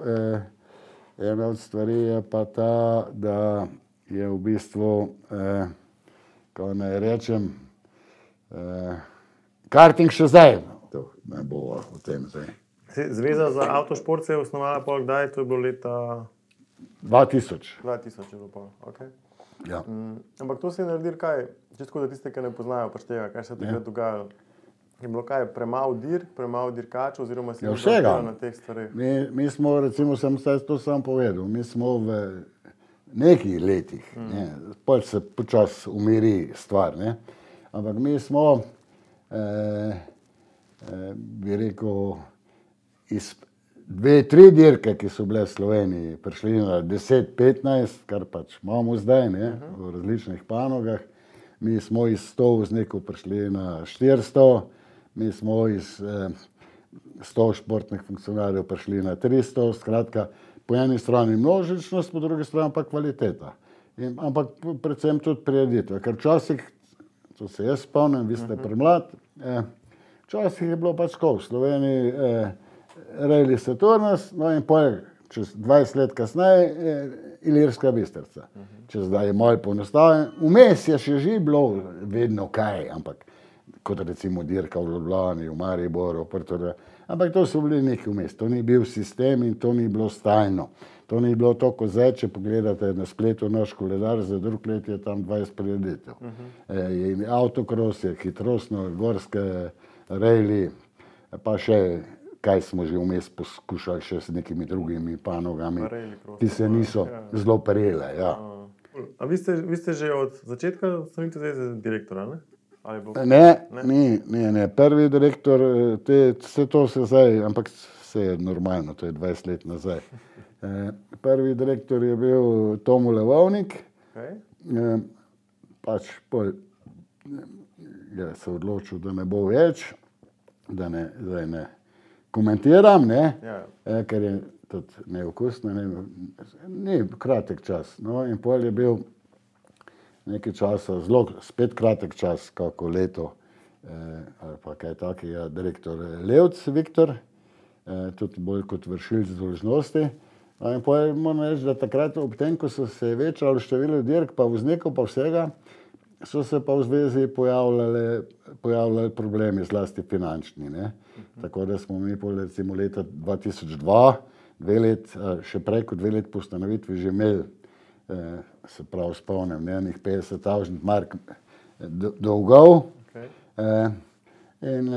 Ena od stvari je pa ta, da je v bistvu, kako naj rečem, karting še zdaj. To ne bo o tem zdaj. Zveza za avtošport se je osnovala pa kdaj? To je bilo leta 2000. 2000 je bilo pa, okej. Ja. Ampak to se je naredilo kaj? Čisto za tiste, ki ne poznajo pač tega, kaj se je takrat dogajalo. Je bilo kaj, premalo dirkačev oziroma si vsega na teh stvareh? Mi smo, recimo, sem to sam povedal, mi smo v nekih letih, potem se počasi umiri stvar, ampak mi smo, bi rekel, iz 2-3 dirke, ki so bile v Sloveniji, prišli na 10-15, kar pač imamo zdaj, v različnih panogah. Mi smo iz 100 voznikov prišli na 400, mi smo iz 100 športnih funkcionarjev prišli na 300, skratka, po eni strani množičnost, po drugi strani pa kvaliteta. Ampak predvsem tudi prireditve, ker včasih, to se jaz spomnim, vi ste premlad, včasih je bilo pač tako, v Sloveniji Rally Saturnus, no in potem čez 20 let kasneje Ilirska Bistrica. Če zdaj je malo poenostavljeno, vmes je še že bilo vedno kaj, ampak kot recimo dirka v Ljubljani, v Mariboru, ampak to so bili neki vmes, to ni bil sistem in to ni bilo stalno. To ni bilo to, ko zdaj, če pogledate na spletu naš koledar, za drug let je tam 20 prireditev. Autokros je, hitrostno, gorske, rally, pa še kaj smo že vmes poskušali še s nekimi drugimi panogami, ki se niso zelo prijele. A vi ste že od začetka Slovenske zveze direktora, ne? Ne. Prvi direktor, vse to se zdaj, ampak vse je normalno, to je 20 let nazaj. Prvi direktor je bil Tomo Levovnik, pač je se odločil, da ne bo več, da zdaj ne komentiram, ne, ker je tudi neokusno, ni kratek čas. No, in pol je bil nekaj časa, zelo spet kratek čas, kako leto, ali pa kaj takega, direktor Levc Viktor, tudi bolj kot vršilc dolžnosti. In pol moram reči, da takrat ob tem, ko so se večalo število dirk, pa voznikov, pa vsega, so se pa v zvezi pojavljali problemi, zlasti finančni, ne. Tako da smo mi pol recimo leta 2002, 2 let, še prej kot 2 let po ustanovitvi že imeli, se pravi spomnim, enih 50.000 mark dolgov. In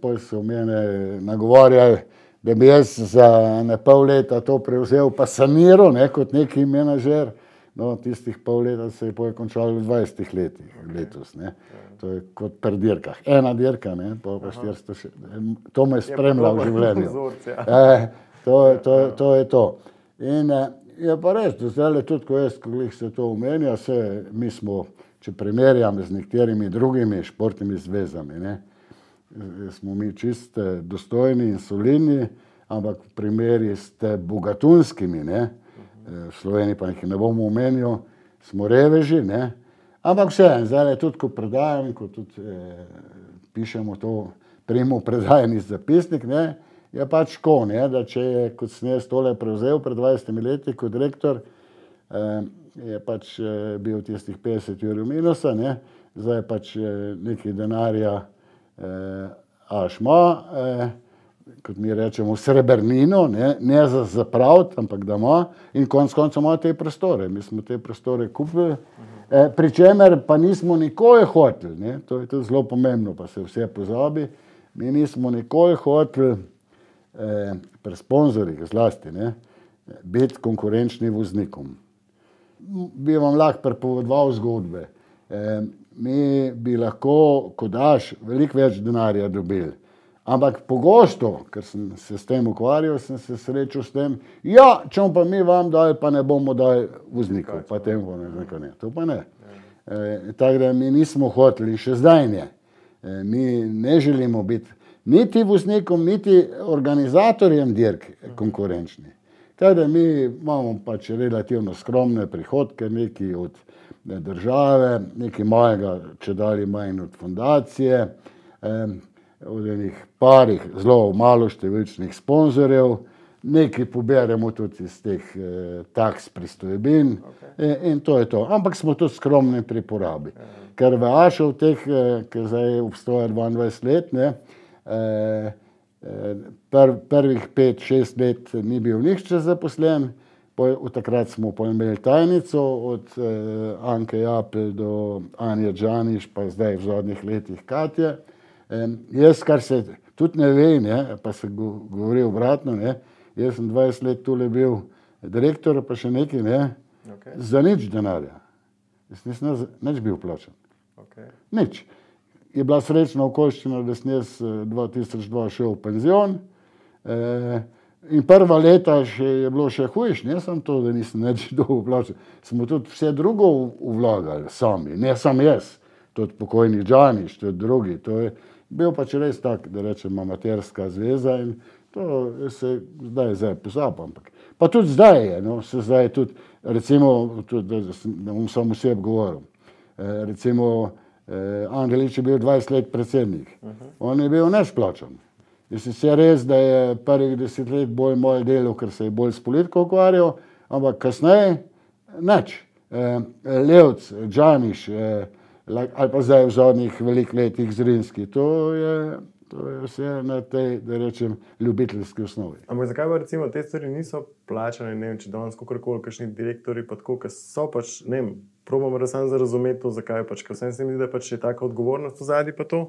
pol so mene nagovarjali, da bi jaz za ne pol leta to prevzel pa saniral, ne, kot neki menedžer. No, tistih pol leta se je končalo v 20 letih letos, ne. To je kot pri dirkah. Ena dirka, ne, pa 400, to me spremlja v življenju. To je to. In je pa res, da zdaj tudi, ko se to omenja, mi smo, če primerjam z nekaterimi drugimi športnimi zvezami, ne, smo mi čist dostojni in solidni, ampak v primeri ste bogatunskimi, ne, v Sloveniji pa jih ne bomo omenil, smo reveži, ne, ampak vseeno, zdaj tudi, ko predajam, ko tudi pišemo to primo predajani zapisnik, ne, je pač tako, ne, da če je, kot sem jaz tole prevzel pred 20 leti kot direktor, je pač bil tistih 50 ur minusa, ne, zdaj pač nekaj denarja ašma, kot mi rečemo, srebrnino, ne za zapraviti, ampak da ima, in konec koncev ima te prostore. Mi smo te prostore kupili, pri čemer pa nismo nikoli hoteli, ne, to je tudi zelo pomembno, pa se vse pozabi, mi nismo nikoli hoteli pri sponzorjih zlasti, ne, biti konkurenčni voznikom. Bi vam lahko pripovedoval zgodbe. Mi bi lahko, ko daš, veliko več denarja dobili. Ampak pogosto, ker sem se s tem ukvarjal, sem se srečal s tem, ja, če pa mi vam dali, pa ne bomo dali voznikov, pa tem ne, to pa ne. Tako da mi nismo hoteli, še zdaj ne. Mi ne želimo biti niti voznikom, niti organizatorjem dirk konkurenčni. Tako da mi imamo pač relativno skromne prihodke, nekaj od države, nekaj malega, če dali manj od fundacije, od enih parih zelo malo številčnih sponzorjev, nekaj poberemo tudi iz teh taks pristojbin, in to je to. Ampak smo tudi skromni pri porabi. Ker v Ašov teh, ki zdaj obstoja 22 let, ne, prvih 5-6 let ni bil nihče zaposlen, od takrat smo pa imeli tajnico, od Anke Japelj do Anje Džaniš, pa zdaj v zadnjih letih Katje. Jaz, kar se tudi ne ve, ne, pa se govori obratno, ne, jaz sem 20 let tule bil direktor, pa še nekaj, ne, za nič denarja. Jaz nisem nič bil plačan. Nič. Je bila srečna okoliščina, da sem jaz 2002 šel v penzion, in prva leta je bilo še hujš, ne samo to, da nisem nič dolgo plačal. Smo tudi vse drugo vlagali sami, ne samo jaz, tudi pokojni Džaniš, tudi drugi. To je bil pač res tak, da rečem, amaterska zveza in to se zdaj pozaba, ampak. Pa tudi zdaj je, no, se zdaj tudi, recimo, tudi, da bom samo sebi govoril, recimo, Andelič je bil 20 let predsednik. On je bil neplačan. Je sicer res, da je prvih 10 let bolj moj delo, ker se je bolj s politiko ukvarjal, ampak kasneje nič. Levc, Džaniš, ali pa zdaj v zadnjih velikih letih Zrinski, to je vse na tej, da rečem, ljubiteljski osnovi. Ampak zakaj pa recimo te stvari niso plačane, ne vem, če danes kakorkoli, kakšni direktori pa tako, ker so pač, ne vem, probam samo razumeti to, zakaj pač, ker vsem se mi zdi, da pač je taka odgovornost v zadnji pa to?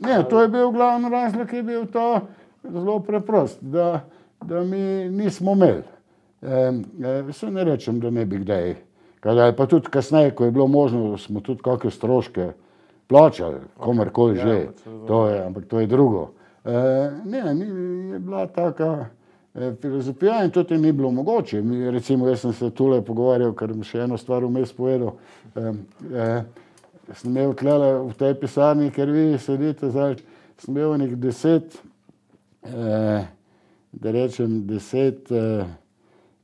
Ne, to je bil glavni razlog, je bil to zelo preprost, da mi nismo imeli. Se ne rečem, da ne bi kdaj. Pa tudi kasneje, ko je bilo možno, smo tudi kakšne stroške plačali, komerkoli že, ampak to je drugo. Ne, je bila taka filozofija in tudi ni bilo mogoče. Recimo, jaz sem se tule pogovarjal, ker sem še eno stvar vmes povedal. sem imel tlele v tej pisarni, ker vi sedite zdaj, sem imel nekih 10, da rečem 10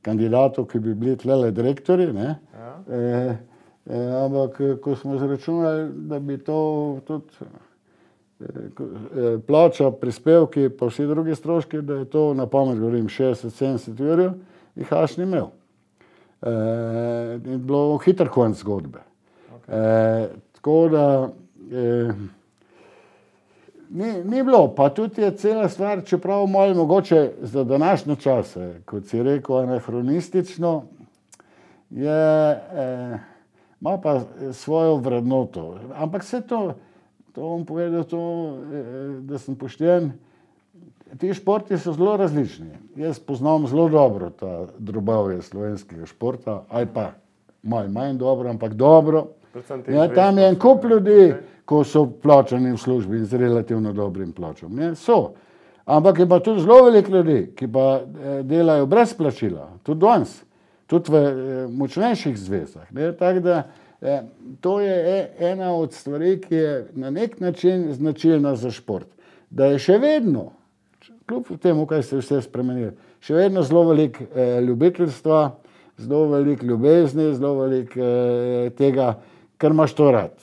kandidatov, ki bi bili tlele direktori, ne? Ampak ko smo zračunali, da bi to tudi plača, prispevki, pa vsi drugi stroški, da je to na pamet govorim 60-70 jurjev, jih Aš ni imel. In bilo hiter konc zgodbe. Tako da ni bilo, pa tudi je cela stvar, čeprav malo mogoče za današnje čase, kot si rekel, anahronistično, ima pa svojo vrednoto. Ampak vse to bom povedal, da sem pošten, ti športi so zelo različni. Jaz poznam zelo dobro ta drobovje slovenskega športa, ali pa malo manj dobro, ampak dobro. Tam je en kup ljudi, ko so plačani v službi z relativno dobrim plačom. So. Ampak je pa tudi zelo veliko ljudi, ki pa delajo brez plačila, tudi danes, tudi v močnejših zvezah. Tako da to je ena od stvari, ki je na nek način značilna za šport. Da je še vedno, kljub temu, kaj se vse spremenilo, še vedno zelo veliko ljubiteljstva, zelo veliko ljubezni, zelo veliko tega, kar imaš to rad.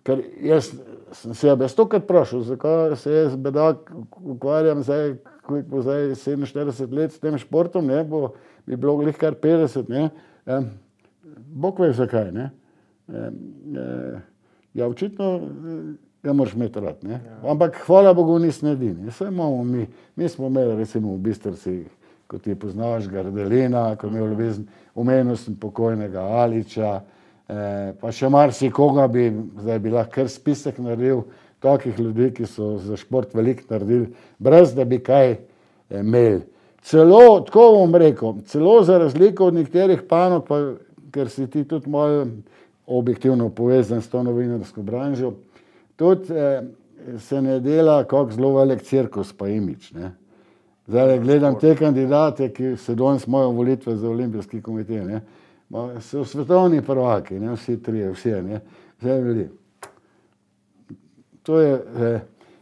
Ker jaz sem se stokrat vprašal, zakaj se jaz bedak ukvarjam zdaj, ko bo zdaj 47 let s tem športom, bi bilo glih kar 50, Bog ve zakaj, Ja, očitno ga moraš imeti rad, Ampak hvala Bogu nisem edini. Mi smo imeli recimo v Bistrici, ko ti poznaš Gardelina, ko je imel ljubezen, omenil sem pokojnega Aliča, pa še marsikoga zdaj bi lahko kar spisek naredil, takih ljudi, ki so za šport veliko naredili, brez da bi kaj imeli. Celo, tako bom rekel, celo za razliko od nekaterih panog, pa ker si ti tudi malo objektivno povezan s to novinarsko branžo, tudi se ne dela kak zelo velik cirkus pa imič. Zdaj gledam te kandidate, ki se danes imajo volitve za olimpijski komitej, so svetovni prvaki, vsi trije, zdaj bili. To je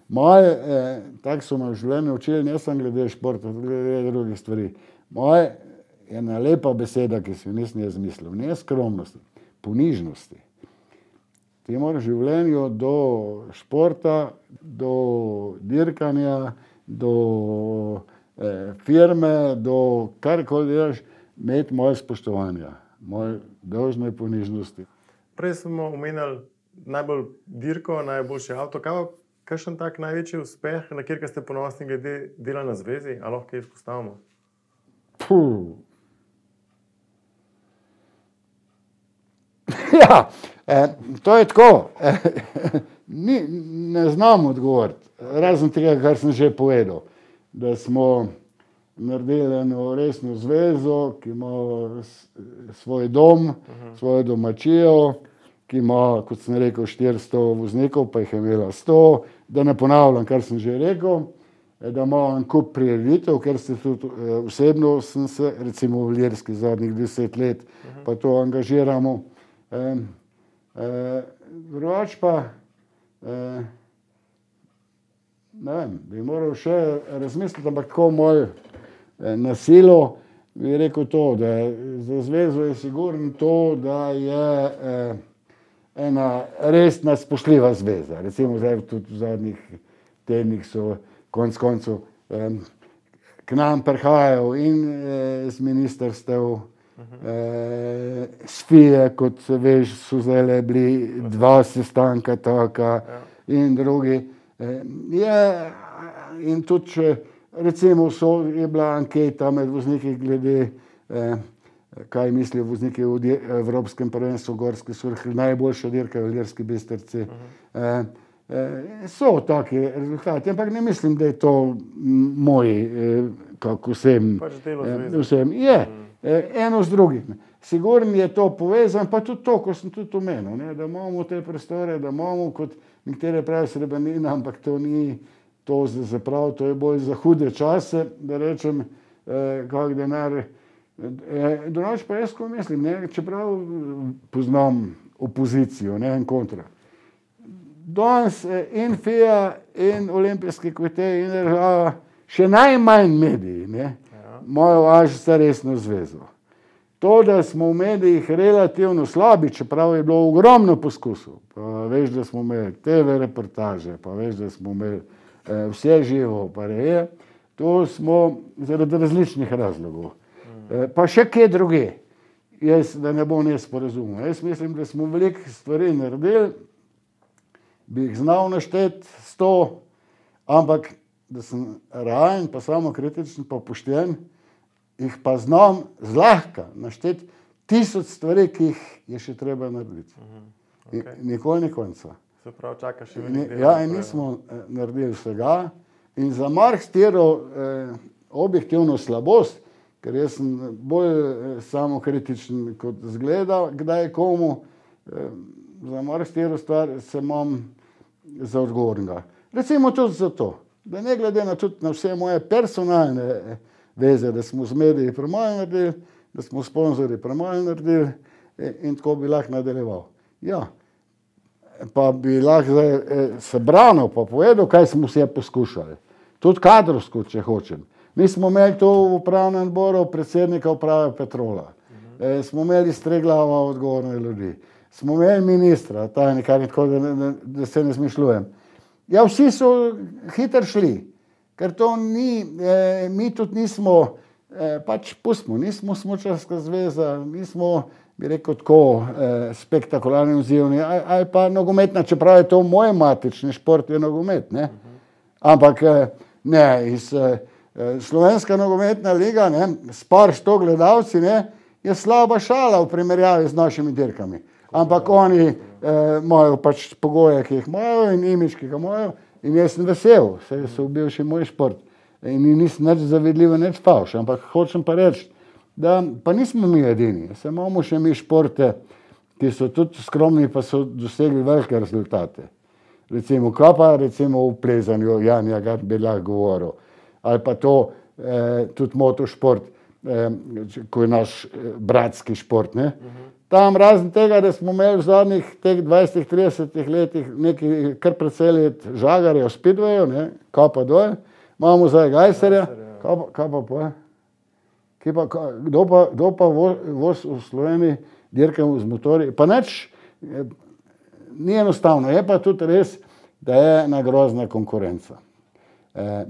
moje, tako so me v življenju učili, ne samo glede športa, glede drugih stvari. Moje je ena lepa beseda, ki si jo nisem jaz mislil, ne skromnosti, ponižnosti. Ti moraš v življenju do športa, do dirkanja, do firme, do karkoli delaš, imeti moje spoštovanja, moje dolžne ponižnosti. Prej smo omenjali najbolj dirko, najboljši avto. Kakšen tak največji uspeh, na kjer ste ponosni glede dela na zvezi, ali lahko kaj izpostavimo? Ja, to je tako. Ne znam odgovoriti, razen tega, kar sem že povedal, da smo naredili eno resno zvezo, ki ima svoj dom, svojo domačijo, ki ima, kot sem rekel, 400 voznikov, pa jih je imela 100, da ne ponavljam, kar sem že rekel, da ima en kup prireditev, ker se tudi osebno sem se, recimo v Ilirski zadnjih 10 let, pa to angažiramo. Drugač pa, ne vem, bi moral še razmisliti, ampak tako moj na silo bi rekel to, da za zvezo je sigurno to, da je ena resna spoštljiva zveza. Recimo zdaj tudi v zadnjih tednih so konec koncev k nam prihajajo in z ministrstev, s FIE, kot veš, so zdaj bili 2 sestanka taka in drugi. In tudi, če recimo je bila anketa med vozniki glede, kaj mislijo vozniki v Evropskem prvenstvu gorske surhe, najboljša dirka v Ilirski Bistrici. So taki rezultati, ampak ne mislim, da je to moj, kako vsem. Je, eno z drugim. Sigurno je to povezan, pa tudi to, ko sem tudi omenil, da imamo te prostore, da imamo kot nekatere pravi srebrnina, ampak to ni to za prav, to je bolj za hude čase, da rečem, kak denar. Drugače pa jaz, ko mislim, čeprav poznam opozicijo, ne, in kontra. Danes in FIA, in Olimpijski komite, in država, še najmanj mediji, ne, imajo Ažisa resno zvezo. To, da smo v medijih relativno slabi, čeprav je bilo ogromno poskusov, pa veš, da smo imeli TV reportaže, pa veš, da smo imeli vse živo, pa je, to smo zaradi različnih razlogov. Pa še kje druge, da ne bom nesporazumel. Jaz mislim, da smo veliko stvari naredili, bi jih znal našteti 100, ampak da sem realen, pa samo kritičen, pa pošten, jih pa znam zlahka našteti 1000 stvari, ki jih je še treba narediti. Okay. Nikoli ni konca. Se pravi, čakaš še veliko dela. Ja, in nismo naredili vsega. In za marsikatero objektivno slabost, ker jaz sem bolj samokritičen kot zgleda, kdaj komu, za marsikatero stvar se imam za odgovornega. Recimo tudi zato, da ne glede na tudi na vse moje personalne veze, da smo z mediji premalo naredili, da smo sponzorji premalo naredili in tako bi lahko nadaljeval. Ja, pa bi lahko se branil, pa povedal, kaj smo vse poskušali. Tudi kadrovsko, če hočem. Mi smo imeli to v upravnem odboru predsednika uprave Petrola. Smo imeli Streglava odgovorne ljudi. Smo imeli ministra, tajnika, tako da se ne zmišljujem. Ja, vsi so hitro šli. Ker to ni, mi tudi nismo, pač pustimo, nismo smučarska zveza, nismo, bi rekel, tako spektakularni odzivni, ali pa nogometna, čeprav je to moj matični šport, je nogomet, ne. Ampak ne, iz Slovenska nogometna liga, ne, s par 100 gledalci, ne, je slaba šala v primerjavi z našimi dirkami. Ampak oni imajo pač pogoje, ki jih imajo in imič, ki ga imajo. In jaz sem vesel, saj so bil še moj šport. In nisem nič zavedljivo, nič fauš. Ampak hočem pa reči, da pa nismo mi edini. Se imamo še mi športe, ki so tudi skromni, pa so dosegli velike rezultate. Recimo recimo v plezanju, Janja Gart bi lahko govoril. Ali pa to, tudi motošport, ko je naš bratski šport, ne. Tam razen tega, da smo imeli v zadnjih teh 20-30 letih neki kar precej let žagarja v Speedwayu, ne, kapa dol, imamo zdaj Gajserja, kaj pa poje? Kdo pa voz v Sloveniji dirkamo z motorji? Pa nič, ni enostavno, je pa tudi res, da je ena grozna konkurenca.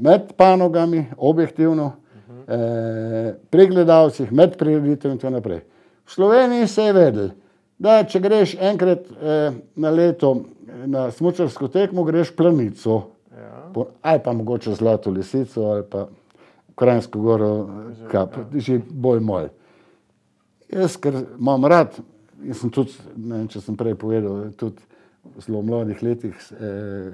Med panogami, objektivno, pri gledalcih, med prireditev in tako naprej. V Sloveniji se je vedel, da če greš enkrat na leto na smučarsko tekmo, greš Planico, ali pa mogoče Zlato lisico, ali pa Kranjsko goro, že bolj moj. Jaz, ker imam rad, in sem tudi, ne vem, če sem prej povedal, tudi v zelo mladih letih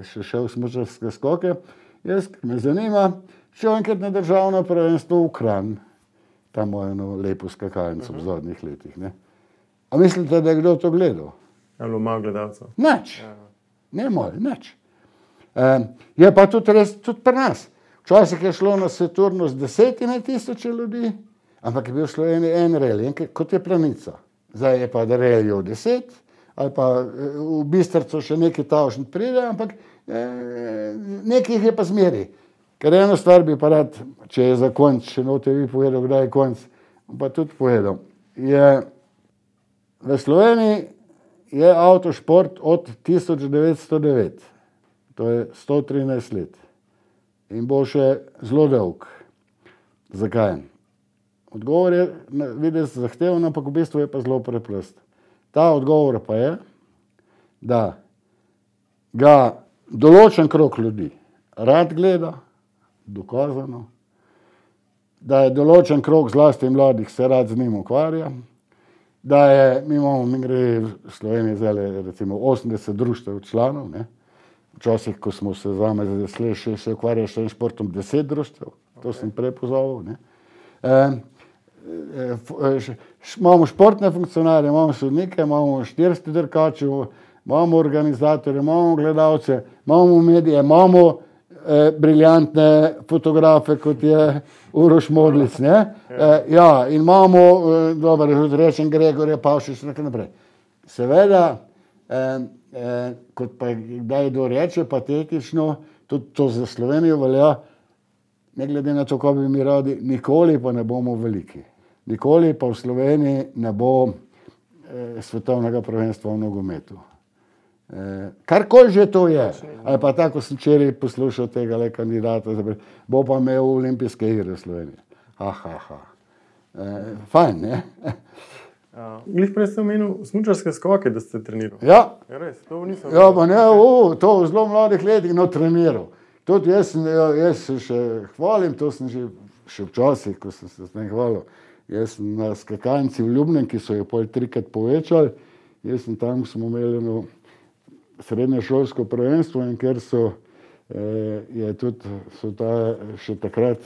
še šel v smučarske skoke, jaz, ker me zanima, šel enkrat na državno prvenstvo v Kranj. Tam imajo eno lepo skakalnico v zadnjih letih, ne. A mislite, da je kdo to gledal? Ali malo gledalcev? Nič. Ne moj, nič. Je pa tudi res, tudi pri nas. Včasih je šlo na Saturnu z 10.000 ljudi, ampak je bil v Sloveniji en reli, kot je Planica. Zdaj je pa da relijo 10, ali pa v Bistrcu še neki tavšen pride, ampak nekih je pa zmeri. Ker eno stvar bi pa rad, če je za konc, še note vi povedal, kdaj je konc, pa tudi povedal. V Sloveniji je avtošport od 1909, to je 113 let. In bo še zelo dolg. Zakaj? Odgovor je videti zahteven, ampak v bistvu je pa zelo preprost. Ta odgovor pa je, da ga določen krog ljudi rad gleda, dokazano, da je določen krog zlasti mladih se rad z njim ukvarja, da je, mi gre v Sloveniji zdaj recimo 80 društev članov, ne. Včasih, ko smo se se ukvarjali s tem športom 10 društev, to sem prej pozval, ne. Imamo športne funkcionarje, imamo sodnike, imamo 400 dirkačev, imamo organizatorje, imamo gledalce, imamo medije, imamo briljantne fotografe, kot je Uroš Modlic, ne? Ja, in imamo, dobro, rečem Gregorja Pavšiča, tako naprej. Seveda, kot pa kdaj kdo reče, patetično, tudi to za Slovenijo velja, ne glede na to, kaj bi mi radi, nikoli pa ne bomo veliki. Nikoli pa v Sloveniji ne bo svetovnega prvenstva v nogometu. Karkoli že to je, ali pa tako sem včeraj poslušal tega kandidata, bo pa imel olimpijske igre v Sloveniji. Fajn, ne? Glih prej ste omenil smučarske skoke, da ste trenirali. Ja. Res, to nisem Ja, pa ne, to v zelo mladih letih, treniral. Tudi jaz se še hvalim, to sem še včasih, ko sem se s tem hvalil. Jaz sem na skakalnici v Ljubnem, ki so jo pol 3-krat povečali, jaz sem tam, smo imeli eno srednješolsko prvenstvo in ker so še takrat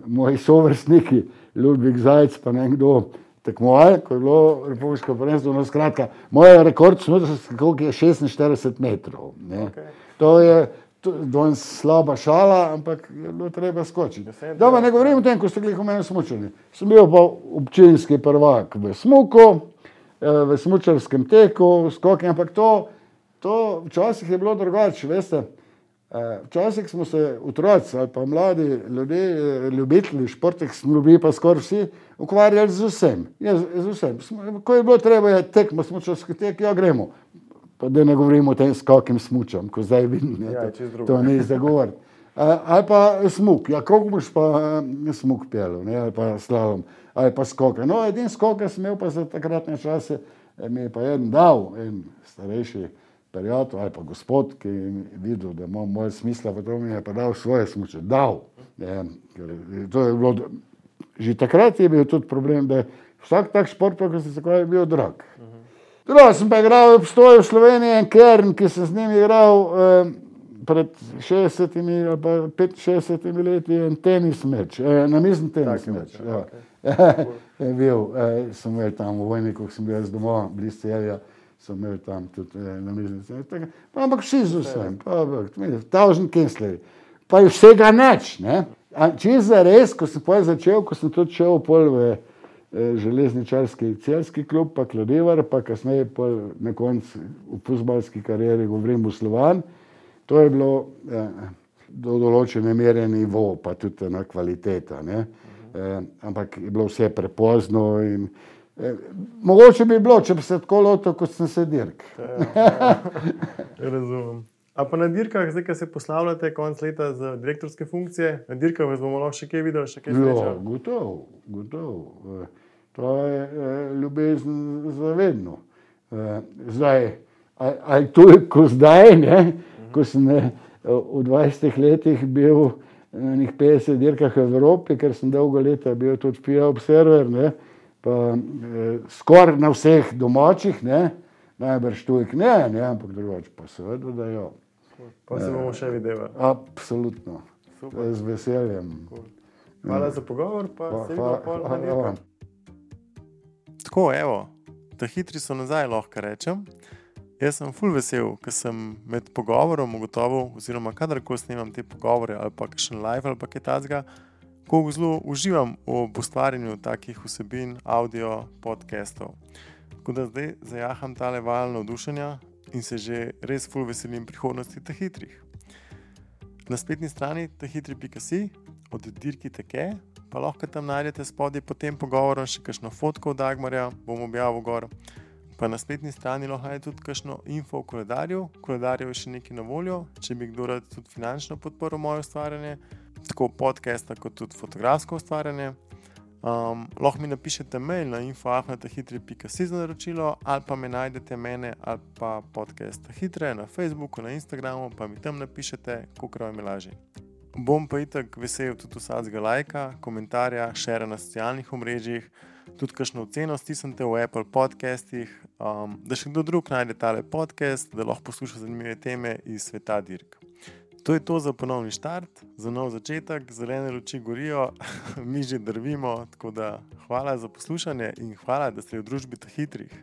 moji sovrstniki, Ludvik Zajc pa nekdo tekmovali, ko je bilo republiško prvenstvo, no skratka, moj rekord koliko je 46 metrov. Ne. Okay. To je danes slaba šala, ampak je bilo treba skočiti. Dobro, ne govorim o tem, ko ste glih omenili smučanje. Sem bil pa občinski prvak v smuku, v smučarskem teku, skoki, ampak to včasih je bilo drugače, veste. Včasih smo se otroci ali pa mladi ljudje, ljubitelji športih, smo bili pa skoraj vsi, ukvarjali z vsem. Z vsem. Ko je bilo treba je tekmo, smučarski tek, ja gremo. Pa da ne govorimo o tem skakim smučam, ko zdaj vidim, to ni za govoriti. Ali pa smuk, ja koliko boš pa smuk pelil, ne, ali pa slalom, ali pa skoke. No, edin skoke sem imel pa za takratne čase, mi je pa en dal, en starejši prijatelj ali pa gospod, ki je videl, da imam moje smisla, pa to mi je pa dal svoje smuče. Dal. To je bilo, že takrat je bil tudi problem, da je vsak tak šport, pa ko se je bil drag. Drugo sem pa igral v Pstoju v Sloveniji en Kern, ki sem z njim igral pred 60 ali pa 65 leti en tenis meč, namizni tenis meč. Ja. Je bil, sem imel tam v Vojniku, sem bil jaz doma, blizu Celja, sem imel tam tudi namizni tenis. Ampak vsi z vsem, tavžen Kensleri. Pa je vsega nič, ne? Čisto zares, ko sem začel, ko sem tudi šel pol v železničarski celski klub, pa Kladevar, pa kasneje na koncu v fuzbalski karieri govorim v Slovan. To je bilo do določene mere nivo, pa tudi ena kvaliteta. Ne? Ampak je bilo vse prepozno in mogoče bi bilo, če bi se tako lotil, kot sem se dirk. Razumem. A pa na dirkah, zdaj, ko se poslavljate konc leta za direktorske funkcije, na dirkah vas bomo lahko še kaj videli, še kaj srečali? Gotovo. To je ljubezen za vedno. Zdaj, ali toliko zdaj, ne, ko sem v 20 letih bil na nekih 50 dirkah v Evropi, ker sem dolgo leta bil tudi FIA observer, ne, pa skoraj na vseh domačih, ne, najbrž tujk ne, ampak drugače pa seveda, da jo. Pa se bomo še videli. Absolutno. Super. Z veseljem. Hvala za pogovor, pa se vidimo pol na dirkah. Tako, evo, ta hitri so nazaj, lahko rečem. Jaz sem ful vesel, ker sem med pogovorom ugotovil, oziroma kadarkoli snemam te pogovore, ali pa kakšen live, ali pa kaj tazga, ko zelo uživam ob ustvarjanju takih vsebin, audio, podcastov. Tako da zdaj zajaham tale val navdušenja in se že res ful veselim prihodnosti teh hitrih. Na spletni strani tehitri.si od dirki teke, pa lahko tam najdete spodaj pod tem pogovorom še kakšno fotko od Dagmarja, bom objavil gor. Pa na spletni strani lahko najdete tudi kakšno info o koledarju. Koledarjev je še nekaj na voljo, če bi kdo rad tudi finančno podporil moje ustvarjanje, tako podcasta kot tudi fotografsko ustvarjanje. Lahko mi napišete mail na info@tehitri.si za naročilo, ali pa me najdete mene ali pa podcast Hitre na Facebooku, na Instagramu, pa mi tam napišete, kolikor vam je lažje. Bom pa itak vesel tudi vsakega lajka, komentarja, šera na socialnih omrežjih, tudi kakšno oceno stisnite v Apple podcastih, da še kdo drug najde tale podcast, da lahko posluša zanimive teme iz sveta dirk. To je to za ponovni štart, za nov začetek, zelene luči gorijo, mi že drvimo, tako da hvala za poslušanje in hvala, da ste v družbi teh hitrih.